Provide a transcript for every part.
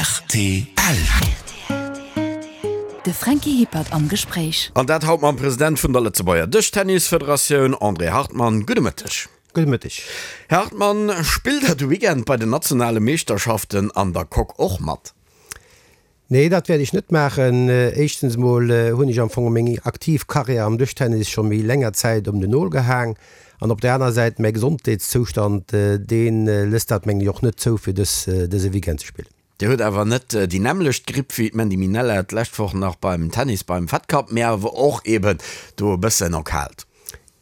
Rtl. De Franky Hippert am Gespréich. An dat haut mam President vun der Lëtzebuerger Dëschtennisfederatioun, André Hartmann. Gudde Mëtteg. Gudde Mëtteg. Här Hartmann, spillt Der de Weekend bei den nationale Meeschterschaften an der Coque och mat? Nee, dat wäert ech net maachen. Éischtens emol hunn ech am Fong meng aktiv Karriär am Dëschtennis scho méi länger Zäit op den Nol gehaang. An op der aner Säit, mäi Gesondheetszoustand, dee lësst dat mengen ech och net zou, fir dës dëse Weekend ze spillen. Dir hutt awer net déi nämmlecht Gripp wéi d'Mandy Minella d'lescht Woch nach beim Tennis beim Fed Cup, mee awer och eben do e bëssen erkaalt.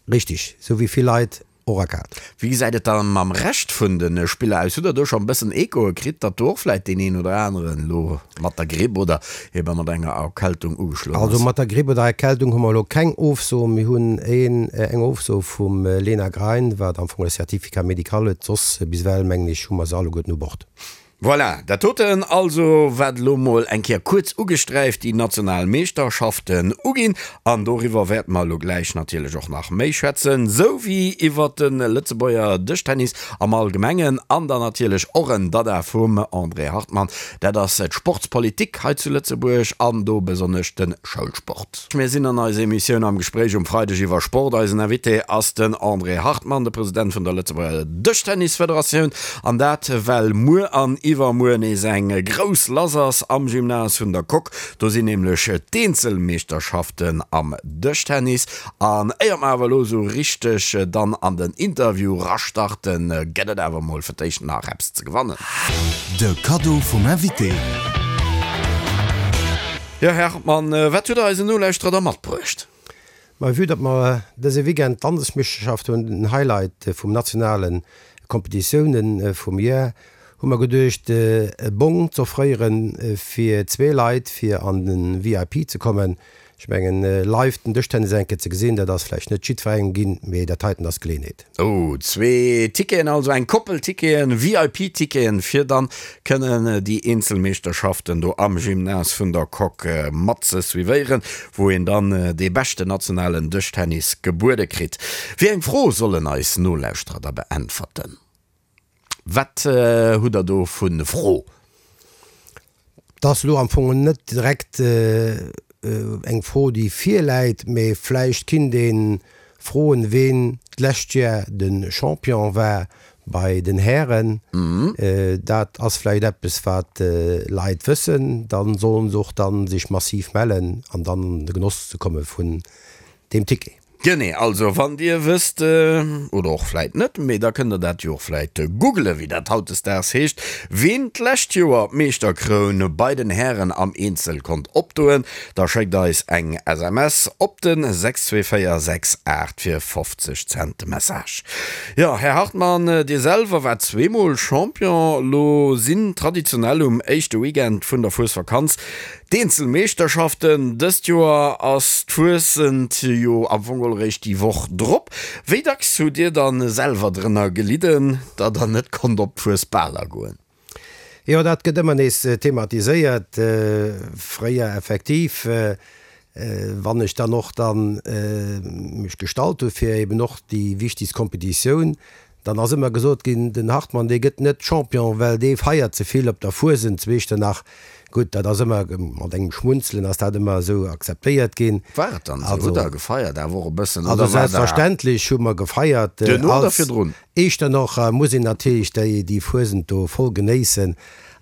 Richtig, sou wéi vill Leit och erkaalt. Wéi gesäit et da mam Rescht vun de Spiller aus? Hutt der do scho e bëssen Echoe kritt, datt do och vläit deen een oder aneren elo mat der Gripp oder ebe mat enger Erkältung ugeschloen ass? Also mat der Gripp oder Erkältung hu mer elo keng Ofso. Mir hunn een, eng Ofso vum Lena Grein, wat am Fong e Certificat médical huet. Soss bis ewell, mengen ech, hu mer se alleguerten u Bord. Voilà, dat doten also, wat elo mol eng Kéier kuerz ugesträift déi national Meeschterschaften uginn. An doriwwer wäerte mer elo gläich natierlech och nach méi schwätzen, sou wéi iwwert de Lëtzebuerger Dëschtennis am Allgemengen an dann natierlech och en Dada vum André Hartmann, dat ass d'Sportspolitik hei zu Lëtzebuerg an do besonnesch de Schoulsport. Mir sinn an eiser Emissioun Am Gespréich um Freideg iwwer Sport. Eisen Invité ass den André Hartmann, de President vun der Lëtzebuerger Dëschtennisfederatioun. An dat well muer an iwwermuer nees eng grouss lass ass am Gymnase vun der Coque. Do sinn nämlech d'Eenzelmeeschterschaften am Dëschtennis. An éier mer awer elo esou richteg dann an den Interview rastarten, gëtt et awer mol fir d'éischt nach eppes ze gewannen. De Kaddo vum Invité. Jo, Här Hartmann, wat hutt Der eisen Nolauschterer da matbruecht? Ma vue datt mer dëse Weekend d'Landesmeeschterschaft hunn, den Highlight vum nationale Kompetitiounen vum Joer, hu mer geduecht e Bong z'offréiere fir zwee Leit fir an de VIP ze kommen. Ech mengen live den Dëschtennis eng Kéier ze gesinn, dat ass vläicht net jiddwerengem ginn, mee dat heiten ass d'Geleeënheet. Oh, zwee Ticketen also, eng Koppel Ticketen, VIP-Ticketen, fir dann kënnen déi eenzel Meeschterschaften do am Gymnase vun der Coque mat ze suivéieren, wou een dann dee beschten nationalen Dëschtennis gebuede kritt. Wéi eng Fro sollen eis Nolauschterer da beäntwerten? Wat hutt der do vu Fro? 't ass elo am Fong net direkt eng Fro, déi virläit, mee vläicht kinnt ee froen, ween d'lescht Jar de Champion war bei den Hären. Dat ass vläicht eppes, wat Leit wëssen. Da sollen se och dann sech massiv mellen an dann an de Genoss ze komme vun deem Ticket. Genee, also wann dir wësst, oder och vläit net, mee da kënnt der dat jo och vläit googelen, wéi dat hautdesdaags heescht, ween d'lescht Joer d'Meeschterkroun bei den Hären am Eenzel konnt opdoen, da schéckt eis eng SMS op de 62468 fir 50 Cent de Message. Jo, Här Hartmann, Dir selwer waart zweemol Champion. Lo sinn traditionell um éischte Weekend vun der Fuesvakanz D'Eenzelmeeschterschaften dëst Joer ass d'Fuessent jo am Fong geholl eréischt déi Woch drop. Wéi dacks hutt Dir dann selwer drënner gelidden, datt der net konnt op d'Fuesbaler goen? Jo, dat gëtt ëmmer nees thematiséiert. Fréier effektiv, wann ech dann och dann mech gestallt hu fir eben och déi wichtegst Kompetitioun Dann ass ëmmer gesot ginn, den Hartmann, dee gëtt net Champion, well dee feiert ze vill op der Fuesent zu Echternach. Gutt, dat ass ëmmer mat engem Schmunzelen ass dat ëmmer esou akzeptéiert ginn. War et dann esou? Hutt Der gefeiert awer och e bëssen, oder war der. Also selbstverständlech hu mer gefeiert. Duerno oder virdrun? Echternocher muss een natierlech déi déi Fuesent do voll genéissen.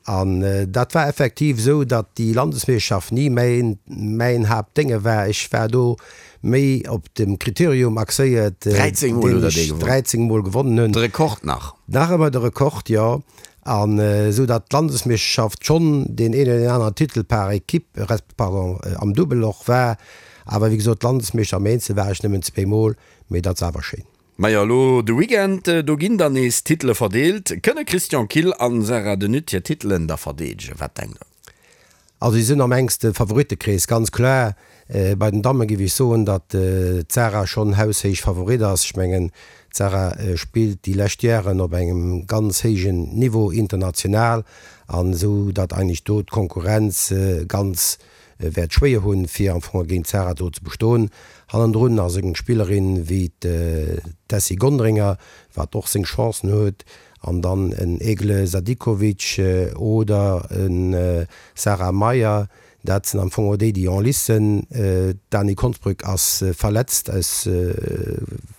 An dat war effektiv esou, datt déi Landesmeeschterschaft ni mäin mäin Haaptdénge war. Ech war do méi op dem Kriterium axéiert, 13 Mol hutt Der dee gewonnen. 13 Mol gewonnen hunn. De Rekord nach. Nach ëmmer de Rekord, jo. An esou datt d'Landesmeeschterschaft schonn deen een oder deen aneren Titel par équipe, resp. Pardon, am Dubbel och war. Awer wéi gesot, Landesmeeschter am Eenzel war ech nëmmen zweemol, mee dat ass awer schéin. Majo, elo de Weekend, do ginn dann nees Titele verdeelt. Kënne Christian Kill an Sarah De Nutte hir Titelen da verdeedegen? Wat denkt Der? Also si sinn am enkste Favorittekrees, ganz kloer. Bei den Damme géif ech soen, datt d'Sarah schonn haushéich Favorit ass. Ech mengen, d'Sarah spillt déi lescht Jaren op engem ganz héijen Niveau international an esou datt eigentlech do d'Konkurrenz ganz wäert schwéier hunn, fir am Fong géint d'Sarah do ze bestoen. Hannendrun ass eng Spillerin wéi d'Tessy Gonderinger, wat och seng Chancen huet. An dann en Egle Sadikovic oder e Sarah Meier, dat sinn am Fong och déi, déi en lice sinn. D'Dani Konsbrück ass verletzt, aus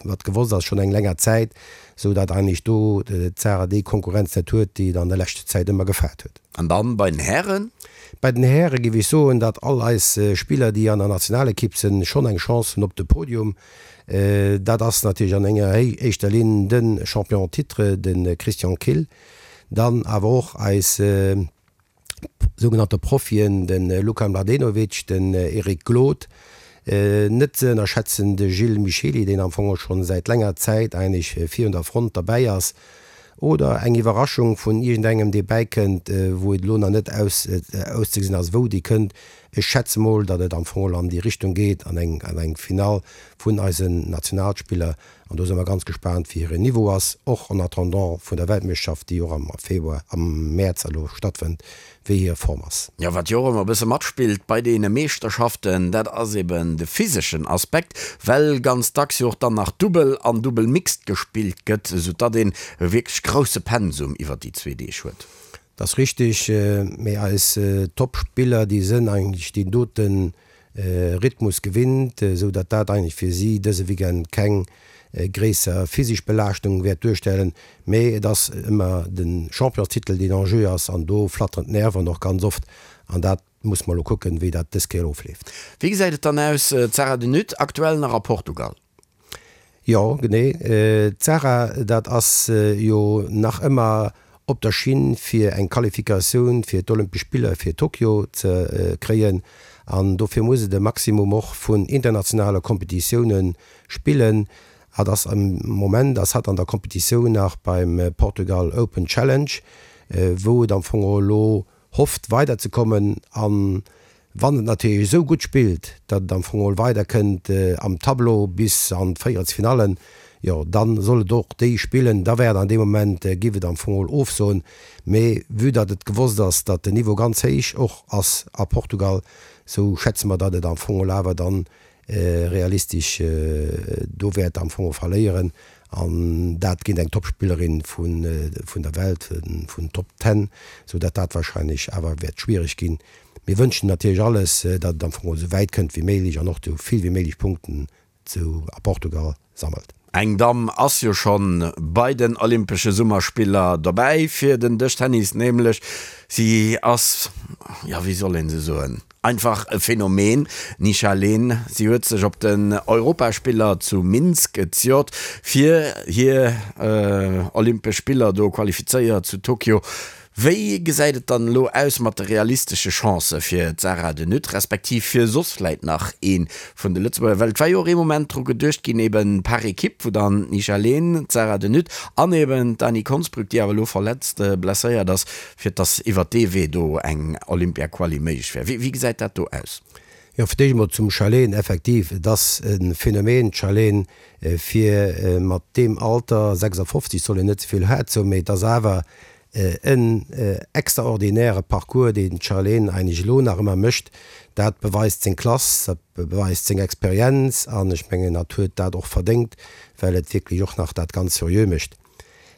wat gewosst ass, schonn eng länger Zäit, esou datt eigentlech do d'Sarah déi Konkurrenz net huet, déi et an der leschter Zäit ëmmer gefaart huet. An dann bei den Hären? Bei den Häre géif ech soen, datt all eis Spiller, déi an der Nationalekipp sinn, schonn eng Chance hunn op de Podium. Dat ass natierlech an enger éischter Linn de Champion en titre, de Christian Kill, dann awer och eis sougenannte Profien, de Luka Mladenovic, den Eric Glod, net ze ënnerschätzen de Gilles Michely, deen am Fong och scho säit länger Zäit eigentlech virun der Front derbäi ass, oder eng Iwwerraschung vun iergendengem, dee bäikënnt, wou et elo nach net auszegesinn ass, wou déi kënnt. Ech schätze mol, datt et am Fong an déi Richtung geet, an eng an eng Finall vun eisen Nationalspiller. An do si mer ganz gespaant, wéi hiren Niveau ass, och en attendant vun der Weltmeeschterschaft, déi och am Februar, am Mäerz elo stattfënnt, wéi hir Form ass. Jo, wat jo och ëmmer e bësse matspillt bei deene Meeschterschaften, dat ass eben de physeschen Aspekt, well ganz dacks jo och dann nach Dubbel an Dubbel Mixed gespillt gëtt, soudatt een e wierklech grousse Pensum iwwer déi zwee Deeg huet. Dat ass richtig, mee eis Top-Spiller, déi sënn eigentlech deen dote Rhythmus gewinnt, esou datt dat eigentlech fir si dëse Weekend keng gréisser physesch Belaaschtung wäert duerstellen. Mee et ass ëmmer de Championstitel, deen en jeu ass, an do flatteren d'Nerven och ganz oft, an dat muss mer elo kucken, wéi dat dës Kéier ofleeft. Wéi gesäit et dann aus, d'Sarah de Nutte aktuell nach a Portugal? Jo, genee. D'Sarah, dat ass jo nach ëmmer op der Schinn fir eng Qualifikatioun fir d'Olympesch Spiller fir Tokio ze kréien. An dofir muss et e Maximum och vun internationale Kompetitioune spillen. Hatt ass am Moment ass hatt an der Kompetitioun nach beim Portugal Open Challenge, wou et am Fong elo hofft weider ze kommen an wann et natierlech esou gutt spillt, datt et am Fong geholl weider kënnt am Tableau bis an d'Véierelsfinallen, jo dann soll et och déi spillen, da wär et an deem Moment, giff et am Fong geholl ofsoen. Mee vue datt et gewosst ass, datt den Niveau ganz héich och ass a Portugal, sou schätze mer, datt et am Fong geholl awer dann realistesch do wäert am Fong verléieren an dat géint eng Topspillerin vun der Welt, vun Top Ten, sou datt dat wahrscheinlech awer wäert schwiereg ginn. Mir wënschen natierlech alles, datt et am Fong esou wäit kënnt wéi méiglech an och esou vill wéi méiglech Punkten zu a Portugal sammelt. Eng Damm ass jo schonn bei den Olympesche Summerspiller dobäi fir den Dëschtennis, nämlech si ass, jo wéi soll een se soen, einfach e Phänomen, d'Nisha Lehn. Si huet sech op den Europaspiller zu Minsk zejoert fir hir Olympesch Spiller do qualifizéiert zu Tokio. Wéi gesäit et dann elo aus mat de realistesche Chancë fir d'Sarah de Nutte, respektiv fir soss vläit nach ee vun de Lëtzebuerger? Well et war jo och ee Moment dru geduecht ginn, eben par Equipe, wou dann d'Nisha Lehn, d'Sarah de Nutte an eben d'Dany Konsbrück, déi awer elo verletzt, blesséiert ass, fir dass iwwert dee Wee do eng Olympia-Quali méiglech wär. Wéi gesäit dat do aus? Jo, fir d'éischt emol zum Charlene. Effektiv, et ass e Phänomen, d'Charlene, fir mat deem Alter, 56 soll een net ze vill haart soen, mee et ass awer En extraordinäre Parcours, deen d'Charlene eigentlech elo nach ëmmer mécht. Dat beweist seng Klass, dat beweist seng Experienz an ech mengen, hatt huet dat och verdéngt, well et wierklech och nach dat ganz seriö mécht.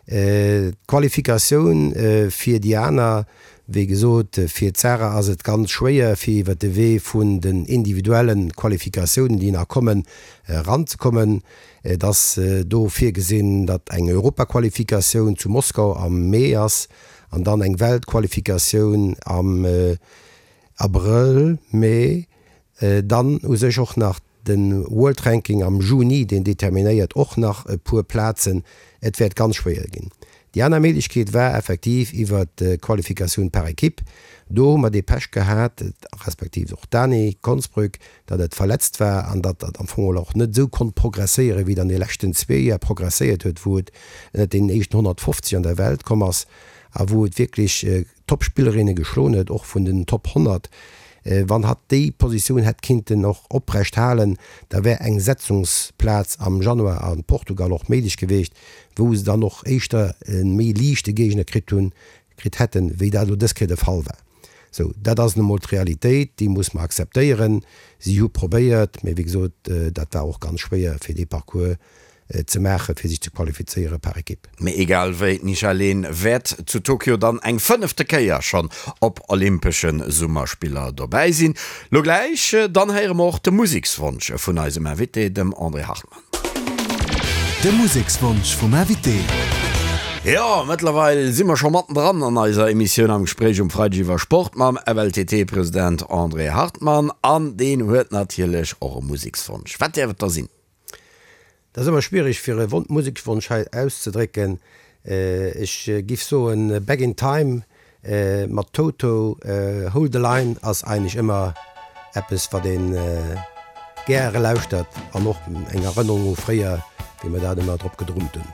D'Qualifikatioun fir déi aner, wéi gesot, fir d'Sarah ass et ganz schwéier, fir iwwer de Wee vun den individuelle Qualifikatiounen, déi nach kommen, eranzekommen. Et ass do virgesinn, datt eng Europaqualifikatioun zu Moskau am Mee ass an dann eng Weltqualifikatioun am Abrëll, Mee. Dann u sech och nach de World Ranking am Juni, deen determinéiert och nach e puer Plazen. Et wäert ganz schwéier ginn. Déi aner Méiglechkeet war effektiv iwwer d'Qualifikatioun par équipe. Do hu mer dee Pech gehat, respektiv och d'Dani Konsbrück, datt et verletzt war an datt dat am Fong och net esou konnt progresséieren, wéi et an de leschten zwee Joer progresséiert huet, wou et ënnert deenen éischten 150 an der Welt komm ass a wou et wierklech Top-Spillerinne geschloen huet, och vun den Top 100. Wann hatt déi Positioun hätt kinnten och oprecht halen, da wär eng Setzungsplaz am Januar a Portugal och méiglech gewiescht, wou se dann och éischter e méi liichte Géigner kritt hunn, kritt hätten, wéi dat elo dës Kéier de Fall war. Sou, dat ass nu mol d'Realitéit, déi muss mer akzeptéieren. Si hu probéiert, mee wéi gesot, dat war och ganz schwéier fir dee Parcours. ze maachen, fir sech ze qualifizéiere par Ekipp. Mee egal wéi, d'Nisha Leen wäert zu Tokio dann eng fënnefte Kéier schonn op Olympesche Summerspiller dobäi sinn. Lo gläich dann héiere mer och de Musekswonsch vun eisem Invité, dem André Hartmann. De Musekswonsch vum Invité. Jo, mëttlerweil si mer scho mattendran an eiser Emissioun Am Gespréich um Freideg iwwer Sport mam FLTT-President André Hartmann. An deen huet natierlech och e Musekswonsch. Wat däerf et da sinn? Dat ass ëmmer schwiereg fir e Musekswonsch hei auszedrécken. Ech giff soen Back in Time mat Toto. Hold the Line ass eigentlech ëmmer eppes wat een gäre lauschtert an och eng Erënnerung u fréier wéi mer dat ëmmer drop gedrummt hunn.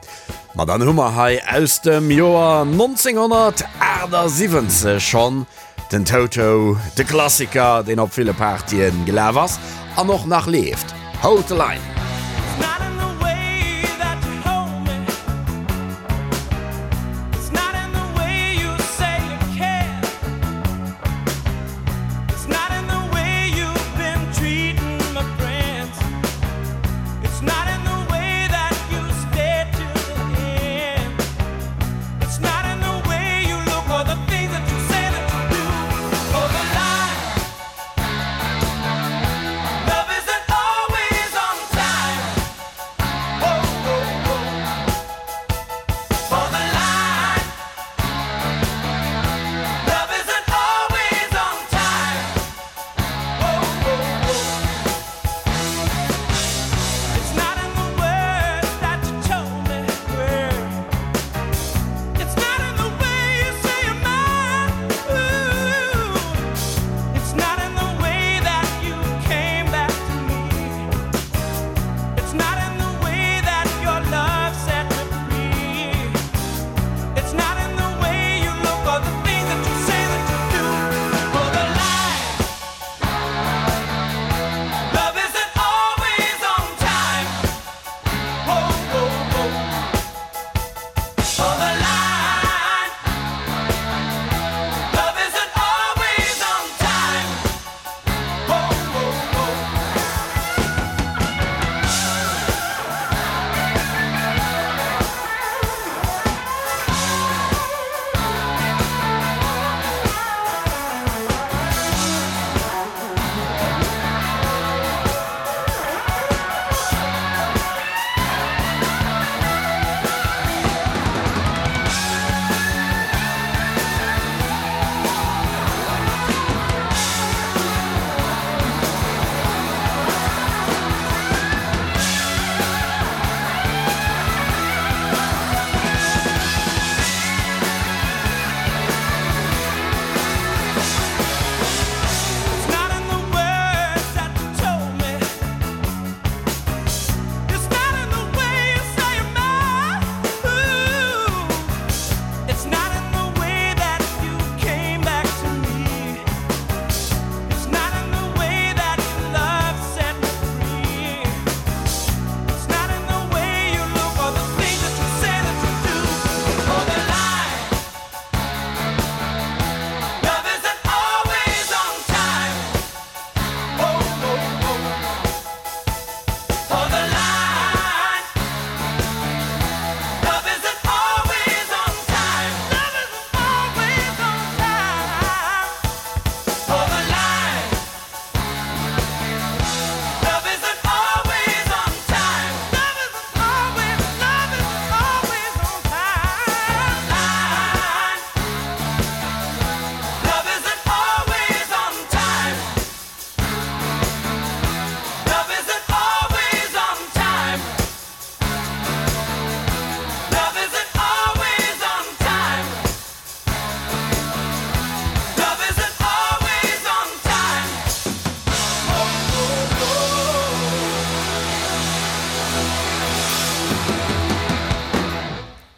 Ma dann hu mer hei aus dem Joer 1978 schonn Den Toto, de Klassiker, deen op ville Partyen gelaf ass an och nach leeft, Hold the Line.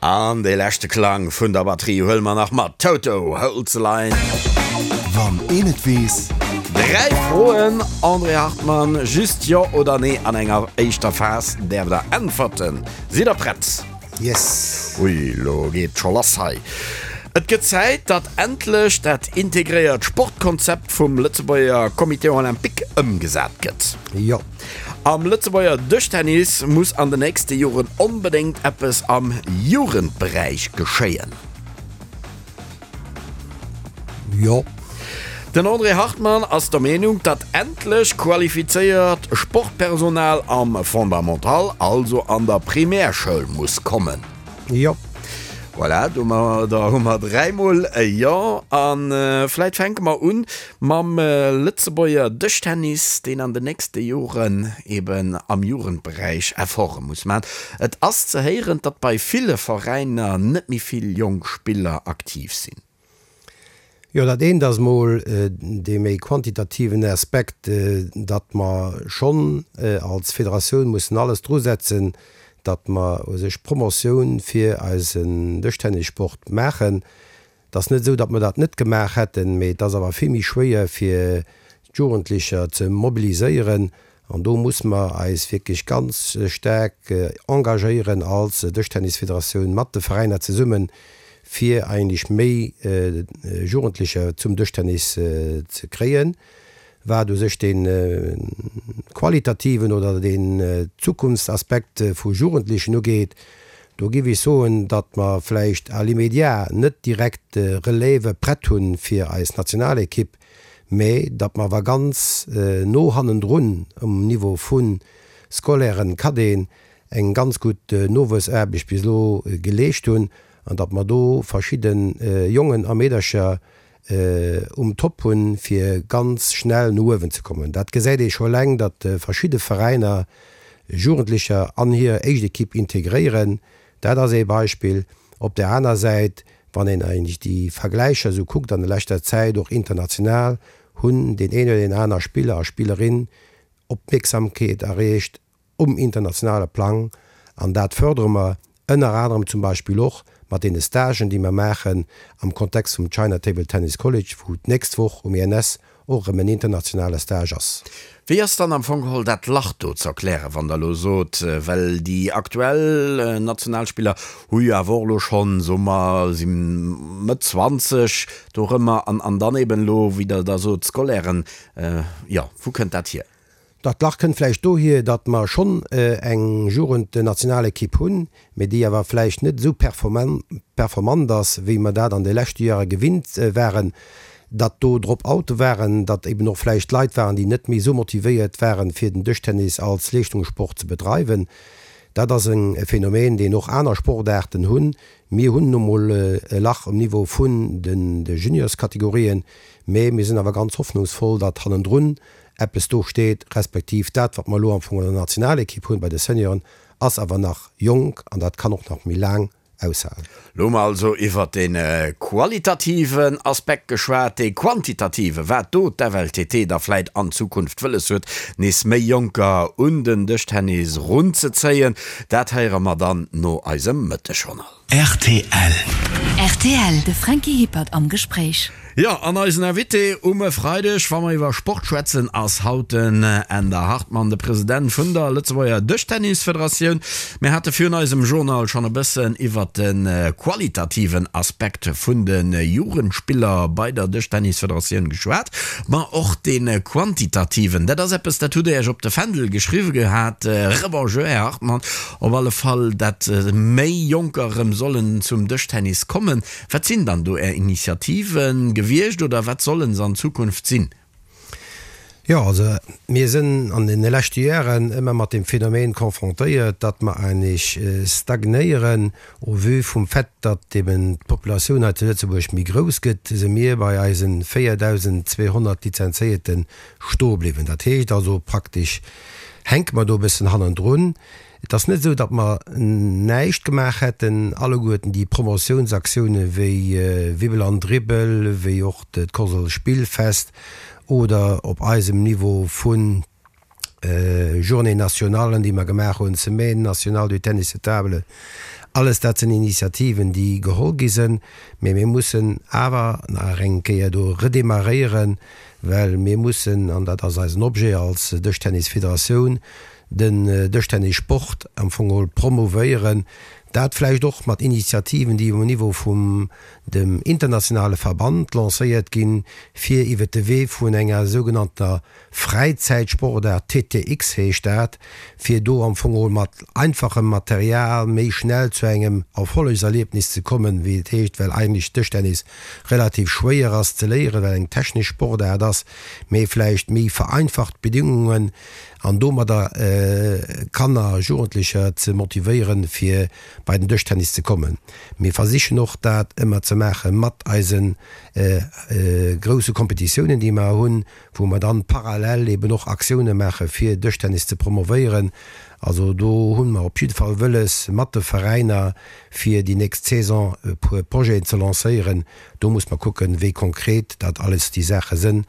An dee leschte Klang vun der Batterie huele mer nach mat, Toto, Hold the Line. Wann een et weess. Dräi Froen, André Hartmann, just Jo oder Nee an enger éischter Phas däerft der äntwerten. Sidd der prett? Yes. Ui, lo geet scho lass hei. Et gëtt Zäit, datt endlech dat integréiert Sportkonzept vum Lëtzebuerger Comité Olympique ëmgesat gëtt. Jo. Am Lëtzebuerger Dëschtennis muss an de nächste Joren onbedéngt eppes am Jugendberäich geschéien. Jo. Den André Hartmann ass der Meenung, datt endlech qualifizéiert Sportpersonal am Fondamental, also an der Primärschoul muss kommen. Jo. Voilà, domadder hu mer dräimol e Jo. A vläit fänke mer un mam Lëtzebuerger Dëschtennis, deen an den nächste Joren eben am Jugendberäich Efforte muss maachen. Et ass ze héieren, datt bei ville Veräiner net méi vill jonk Spiller aktiv sinn. Jo, dat eent ass mol dee méi quantitativen Aspekt, datt mer schonn als Federatioun mussen alles drusetzen, datt mer u sech Promotioun fir eisen Dëschtennissport maachen. Et ass net esou, datt mer dat net gemaach hätten, mee et ass awer vill méi schwéier fir d'Jugendlecher ze mobiliséieren an do muss mer eis wierklech ganz staark engagéieren als Dëschtennisfederatioun mat de Veräiner zesummen, fir eigentlech méi Jugendlecher zum Dëschtennis ze kréien. Wat u sech dee qualitativen oder deen Zukunftsaspekt vu Jugendlechen ugeet, do géif ech soen, datt mer vläicht à l'immédiat net direkt Relève prett hu fir eis Nationalekipp, mä datt mer awer ganz no hannendrun um Niveau vu Scolairen, Cadeten eng ganz gutt Nowuessaarbecht bis elo geleescht hunn an datt mer do verschidde Jongen a Meedercher um Top hunn, fir ganz schnell no uewen ze kommen. Dat gesäit ee scho eleng, datt verschidde Veräiner Jugendlecher an hir éischt Ekipp integréieren. Dat ass ee Beispill. Op där aner Säit, wann een eigentlech déi Vergläicher esou kuckt an der leschter Zäit, och international, hunn deen een oder deen aner Spiller a Spillerin Opmierksamkeet erreecht um internationale Plang an dat fërdere mer ënner anerem zum Beispill och mat deene Stagen, déi mer maachen am Kontext vum China Table Tennis College, wou d'nächst Woch um INS och erëm en internationale Stage ass. Wéi ass dann am Fong geholl dat Lach do ze erklären, wann Der elo sot, well déi aktuell Nationalspiller hu jo awer och elo schonn, soe mer, si Mëtt 20 dorëmmer an an dann eben elo, wéi Der da sot, d'Scolairen, jo, wou kënnt dat hier? Dat Lach kënnt vläicht dohier, datt mer schonn eng Jugendnationalekipp hunn, mee déi awer vläicht net esou performant ass, wéi mer dat an de leschte Jahre gewinnt waren, datt do Drop-oute waren, datt eben och vläicht Leit waren, déi net méi esou motivéiert waren, fir den Dëschtennis als Leeschtungssport ze bedreiwen. Dat ass e Phänomen, deen och aner Sportaarten hunn. Mir hunn nu mol e Lach um Niveau vun de Juniorskategorien, mee mir sinn awer ganz hoffnungsvoll, datt hannendrun eppes do steet, respektiv dat, wat mer elo am Fong an der Nationalekipp hunn bei de Senioren, ass awer nach jonk an dat kann och nach méi laang aushalen. Lo hu mer also iwwert dee qualitativen Aspekt geschwat, dee quantitative, wat do d'FLTT da vläit an Zukunft wëlles huet, nees méi Jonker un den Dëschtennis runzezéien, dat héiere mer dann no eisem Mëttegjournal. Rtl. Rtl, De Franky Hippert am Gespréich. Jo, an eisen Invité um e Freideg, wa mer iwwer Sport schwätzen, ass haut den Änder Hartmann, de President vun der Lëtzebuerger Dëschtennisfederatioun. Mir hate virun eisem Journal schonn e bëssen iwwer de qualitativen Aspekt vun de Jugendspiller bei der Dëschtennisfederatioun geschwat, ma och dee quantitativen, dat ass eppes, dat hutt Der Iech op de Fändel geschriwwe gehat. Rebonjour, Här Hartmann. Op alle Fall, dat méi Jonker erëm sollen zum Dëschtennis kommen. Wat sinn dann do Är Initiative gewiescht oder wat sollen se an Zukunft sinn? Jo, also mir sinn an deene leschte Jaren ëmmer mat deem Phänomen confrontéiert, datt mer eigentlech stagnéieren. Au vu vum Fait, datt eben d'Populatioun hei zu Lëtzebuerg méi grouss gëtt, si mir bei eise 4.200 Lizenzéierte stoe bliwwen. Dat heescht also praktesch hänke mer do e bëssen hannendrun. Et ass net esou, datt mer näischt gemaach hätten. Alleguerten déi Promotiounsaktioune wéi Wibbel an Dribbel, wéi och d'Kosel Spillfest oder op eisem Niveau vu Journées nationalen, déi mer gemaach hunn, Semaine nationale du tennis de table, alles dat sinn Initiativen, déi geholl gi sinn. Mee mir mussen awer nach eng Kéier do redémarréieren, well mir mussen, an dat ass eisen Objet als Dëschtennisfederatioun, den Dëschtennissport am Fong geholl promouvéieren. Dat vläicht och mat Initiativen, déi um Niveau vum dem internationale Verband lancéiert ginn, fir iwwert de Wee vun enger sougenannter Fräizäitsportaart, TTX heescht dat, fir do am Fong geholl mat einfachem Material méi schnell zu engem Erfollegserliebnis ze kommen, wéi et heescht, well eigentlech Dëschtennis relativ schwéier ass ze léieren, well eng technesch Sportaart ass, mee vläicht méi vereinfacht Bedingungen an domadder Kanner a Jugendlecher ze motivéieren, fir bei den Dëschtennis ze kommen. Mir versichen och dat ëmmer ze maache mat eise grousse Kompetitiounen, déi mer hunn, wou mer dann parallel eben och Aktioune maache fir Dëschtennis ze promovéieren. Also do hu mer op jidde Fall wëlles mat de Veräiner fir déi nächst Saison e puer Projeten ze lancéieren. Do muss mer kucken, wéi konkret dat alles déi Saache sënn.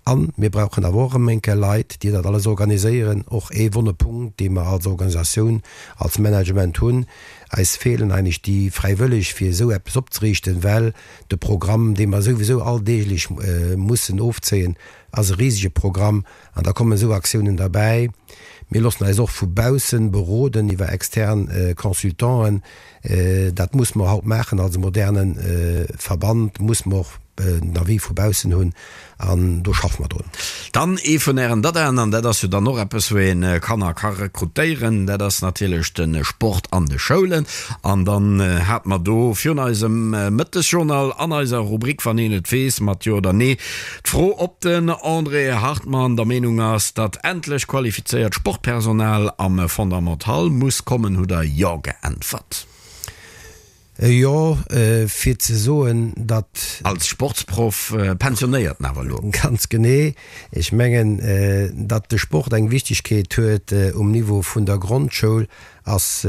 A mir brauchen awer och erëm eng Kéier Leit, déi dat alles organiséieren. Och ee wonne Punkt, dee mer als Organisatioun, als Management hunn. Eis feelen eigentlech déi Fräiwëlleg, fir esou eppes opzeriichten, well de Programm, dee mer souwisou alldeeglech mussen ofzéien, ass e risege Programm an da kommen esou Aktiounen derbäi. Mir loossen eis och vu baussen beroden iwwer extern Consultanten. Dat muss mer haut maachen als e moderne Verband, muss mer och den Avis vu baussen hunn an do schaffe mer drun. Dann ee vun Ären Dadaen, an dat ass jo dann och eppes, wou ee Kanner ka rekrutéieren, dat ass natierlech de Sport an de Schoulen. An dann hate mer do virun eisem Mëttesjournal an eiser Rubrik Wann een et weess mat Jo oder Nee d'Fro, ob den André Hartmann der Meenung ass, datt endlech qualifizéiert Sportpersonal am Fondamental muss kommen, hutt Der Jo geäntwert. Jo, fir ze soen, datt. Als Sportsproff, pensionéierten awer elo. Ganz genee. Ech mengen, datt de Sport eng Wichtigkeet huet um Niveau vun der Grondschoul, ass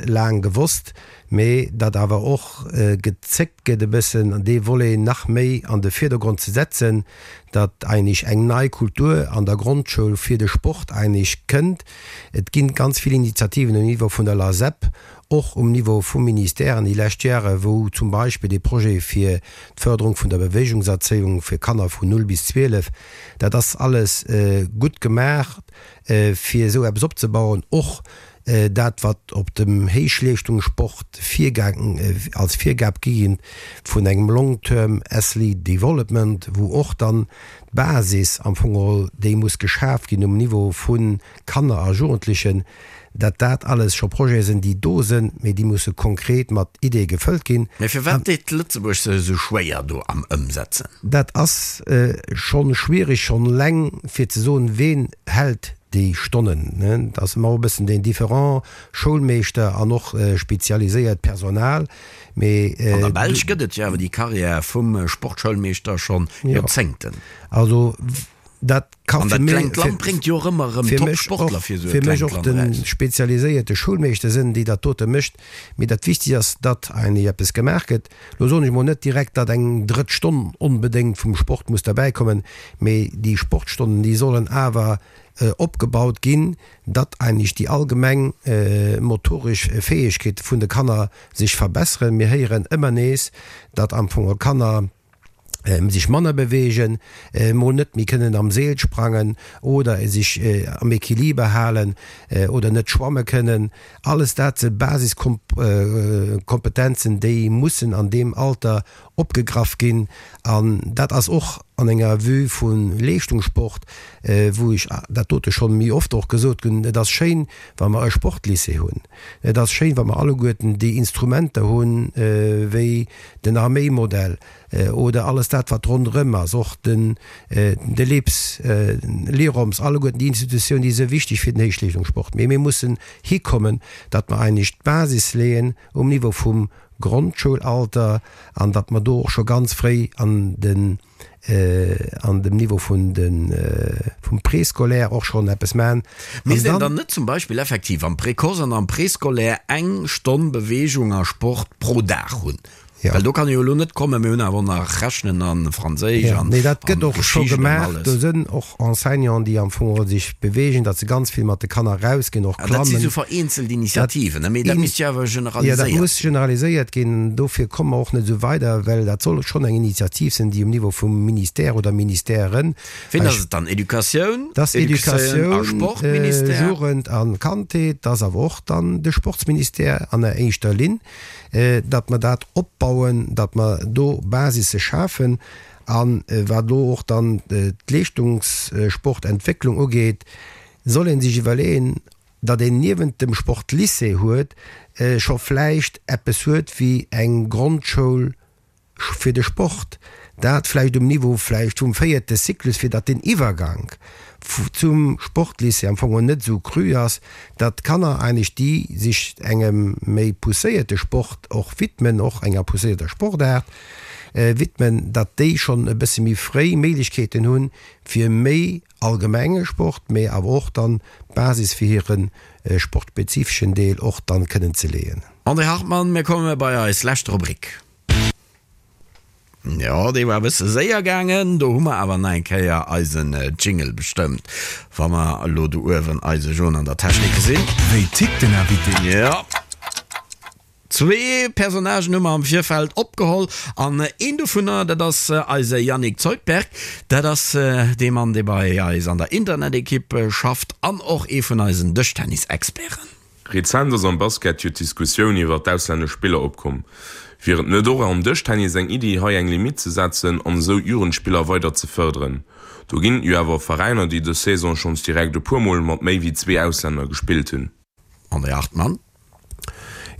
laang gewosst. Mee datt awer och gezéckt gëtt e bëssen dee Volet nach méi an de Virdergrond ze setzen, datt eigentlech eng nei Kultur an der Grondschoul fir de Sport eigentlech kënnt. Et ginn ganz vill Initiativen um Niveau vun der LASEP, och um Niveau vum Ministère an déi lescht Jahre wou zum Beispill dee Projet fir d'Förderung vun der Bewegungserzéiung fir Kanner vun 0 bis 12, dat ass alles gutt gemaach fir esou eppes opzebauen, och Dat wat op dem Héichleeschtungssport virgaang, als Virgab gi ginn vun engem Long Term Athlete Development, wou och dann d'Basis am Fong geholl déi muss geschaf ginn um Niveau vu Kanner a Jugendlechen, dat dat alles scho Projete sinn, déi do sinn, mee déi musse konkret mat Ideeë gefëllt ginn. Mee firwat deet Lëtzebuerg sech esou schwéier do am Ëmsetzen? Dat ass schonn schwierig, schonn eleng fir ze soen, ween hält déi Stonnen, dat ass ëmmer och e bëssen den Différend, Schoulmeeschter an och spezialiséiert Personal, mee. An der Belsch gëtt et jo awer déi Carrière vum Sportschoulmeeschter schonn Joerzéngten. Also dat ka fir mech. An dat klengt Land bréngt jo och ëmmer erëm Top-Sportler fir esou e klengt Land eraus. Fir mech och de spezialiséierte Schoulmeeschter sinn, déi dat dote mécht. Mee dat Wichtegst ass, datt eigentlech eppes gemaach gëtt. Lo soen ech mol net direkt, datt eng drëtt Stonn onbedéngt vum Sport muss derbäikommen, mee déi Sportstonnen, déi sollen awer opgebaut ginn, datt eigentlech déi allgemeng motoresch Fäegkeete vun de Kanner sech verbesseren. Mir héieren ëmmer nees, datt am Fong Kanner sech manner beweegen, mol net méi kënnen am Seel sprangen oder sech am Equiliber halen oder net schwamme kënnen. Alles dat si Basiskompetenzen, déi mussen an deem Alter opgegraff ginn. An dat ass och an enger Vue vu Leeschtungssport, wou ech dat dote scho méi oft och gesot hunn, Et ass schéin, wa mer e Sportlycée hunn. Et ass schéin, wa mer alleguerten déi Instrumenter hunn, wéi den Arméimodell oder alles dat, wat ronderëm ass, och den de LIPS, l'IROMS, alleguerten déi Institutiounen, déi si wichteg fir den Héichleeschtungssport. Mee mir mussen hikommen, datt mer eigentlech d'Basis leeën um Niveau vum Grondschoulalter an datt mer do och scho ganz fréi an den an dem Niveau vun de vum Préscolaire och schonn eppes maachen. Misst een dann net zum Beispill effektiv am Précoce an am Préscolaire eng Stonn Beweegung a Sport pro Dag hunn? Well do kann ee jo elo net kommen, mir hunn awer och nach Rechnen a Franséisch an Nee, dat gëtt och scho gemaach. Do sënn och Enseignanten, déi am Fong sech beweegen, datt se ganz vill mat de Kanner erausginn, och klammen. Dat si sou vereenzelt Initiativen, mee dat misst jo awer generaliséiert ginn. Jo, dat muss generaliséiert ginn. Dofir komme mer och net esou weider, well dat soll schonn eng Initiativ sinn, déi um Niveau vum Ministère oder Ministèren. Ween ass et dann? Educatioun? Dat ass Educatioun a Sportministère? Jugend a Kandheet. Dat ass awer och dann de Sportsministère an der éischter Linn. datt mer dat opbauen, datt mer do Basisse schafen. A wat elo och dann d'Leeschtungssportentwécklung ugeet, soll ee sech iwwerleeën, datt een niewent dem Sportlycée huet scho vläicht eppes huet wéi eng Grondschoul, fir de Sport, dat vläicht um Niveau vläicht vum véierte Cyclus, fir datt den Iwwergank zum Sportlycée am Fong och net esou cru ass, datt d'Kanner eigentlech, déi sech engem méi pousséierte Sport och widmen, och enger pousséierter Sportaart widmen, datt déi schonn e bësse méi fréi Méiglechkeeten hunn, fir méi allgemenge Sport, mee awer och dann d'Basis fir hire sportspezifeschen Deel och dann kënnen ze leeën. André Hartmann, Mir komme bei eis lescht Rubrik. Jo, dee war e bësse séier gaangen. Do hu mer awer nach eng Kéier eisen Jingle bestëmmt, wa mer elo do uewen eise Jon an der Technik gesinn. Wéi tickt den Invité? Jo, zwee Personnagen hu mer am Virfeld opgeholl an een dovunner, dat ass eise Yannick Zeutberg. Dat ass dee Mann, dee bei eis an der Internet-Ekipp schafft an och ee vun eisen Dëschtennis-Experten. Rezent ass am Basket jo d'Diskussioun iwwert d'auslännesch Spiller opkomm. Wier et net och am Dëschtennis eng Iddi hei eng Limitt ze setzen an esou d'Jugendspiller weider ze fërderen? Do ginn et jo awer Veräiner déi dës Saison schonns direkt e puer mol mat méi wéi zwee Auslänner gespillt hunn. André Hartmann.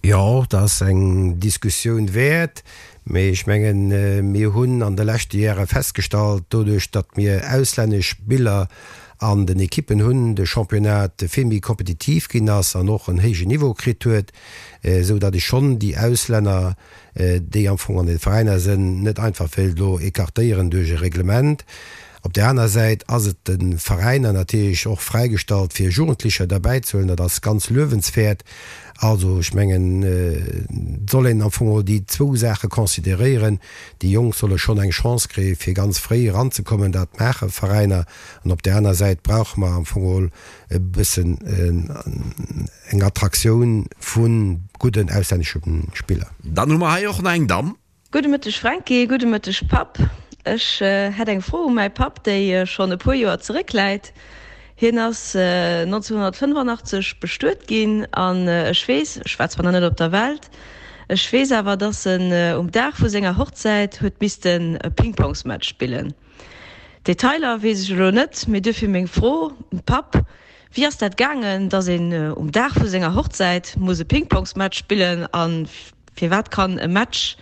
Jo, dat ass eng Diskussioun wäert. Mee ech mengen, mir hunn an de leschte Jahre festgestallt, doduerch datt mir auslännesch Spiller an den Ekippen hunn, de Championnat vill méi kompetitiv ginn ass an och en héijen Niveau kritt huet, esou datt ech schonn déi Auslänner, déi am Fong an de Veräiner sënn, net einfach wéilt elo écartéieren duerch e Reglement. Op där aner Säit ass et de Veräiner natierlech och fräigestallt, fir Jugendlecher derbäizehuelen. Dat ass ganz luewenswäert. Also, ech mengen, et soll een am Fong och déi zwou Saache consideréieren. Déi Jonk solle schonn eng Chance kréien, fir ganz fréi eranzekommen. Dat maache Veräiner. An op där aner Säit brauche mer am Fong geholl e bëssen eng Attraktioun vu gudden auslännesche Spiller. Dann hu mer hei och nach eng Damm. Gudde Mëtteg Franky, gudde Mëtteg Papp. Ech hätt eng Fro u mäi Papp, déi schonn e puer Joer zeréckläit. Hien ass 1985 bestuet ginn an ech weess, ech war zwar nach net op der Welt, ech weess awer, dass en um Dag vu senger Hochzäit huet missten e Pingpongsmatch spillen. Detailer weess ech elo net, mee duerfir meng Fro, Papp, wéi ass dat gaangen, dass een um Dag vu senger Hochzäit muss e Pingpongsmatch spillen a Firwat kann e Match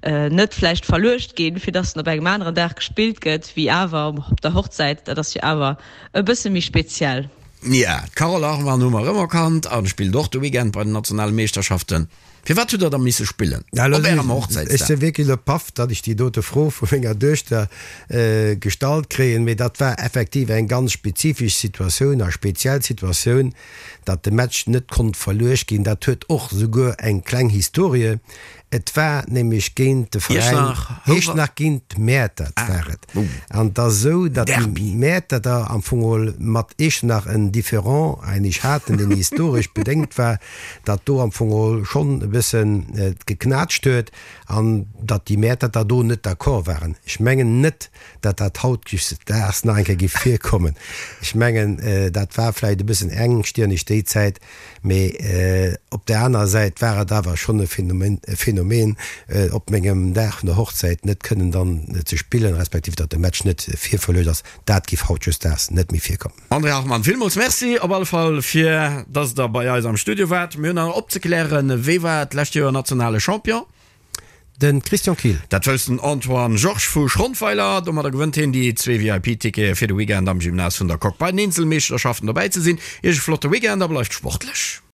net vläicht verluecht ginn, fir dass en op engem aneren Dag gespillt gëtt, wéi awer op der Hochzäit? Dat ass jo awer e bësse méi speziell. Ja, d'Carole Hartmann hu mer erëm erkannt a spillt och de Weekend bei den nationale Meeschterschaften. Firwat hutt der da misse spillen op ärem Hochzäitsdag? Ech si wierklech elo paff, datt ech déi dote Fro vu menger Duechter gestallt kréien, mee dat war effektiv eng ganz spezifesch Situatioun a speziell Situatioun. Datt de Match net konnt verluecht ginn, dat huet och souguer eng kleng Historie. Et war nämlech géint de Veräin Iechternach, géint Mäertert war et. An et ass esou, datt déi Mäerterter am Fong geholl mat Iechternach en Différend eigentlech haten, deen historesch bedéngt war, datt do am Fong geholl schonn e bëssen geknaatscht huet an datt déi Mäerterter do net d'accord waren. Ech mengen net, datt dat hautdesdaags nach eng Kéier géif virkommen. Ech mengen, dat war vläicht e bëssen engstirneg déi Zäit, mee op där anerer Säit war et awer schonn e Phänomen, op mengem Dag vun der Hochzäit net kënnen dann ze spillen, respektiv datt de Match net virverluecht ass. Dat géif hautdesdaags net méi virkommen. André Hartmann, villmools Merci op alle Fall fir datt Der bei eis am Studio waart. Mir hunn nach opzeklären, Wee war d'lescht Joer nationale Champion? De Christian Kill. Dat wousst den Antoine Georges vu Schrondweiler. Domadder gewënnt hien déi zwee VIP-Tickete fir de Weekend am Gymnase vun der Coque bei den Eenzelmeeschterschaften dobäi ze sinn. Iech e flotte Weekend a bleift sportlech!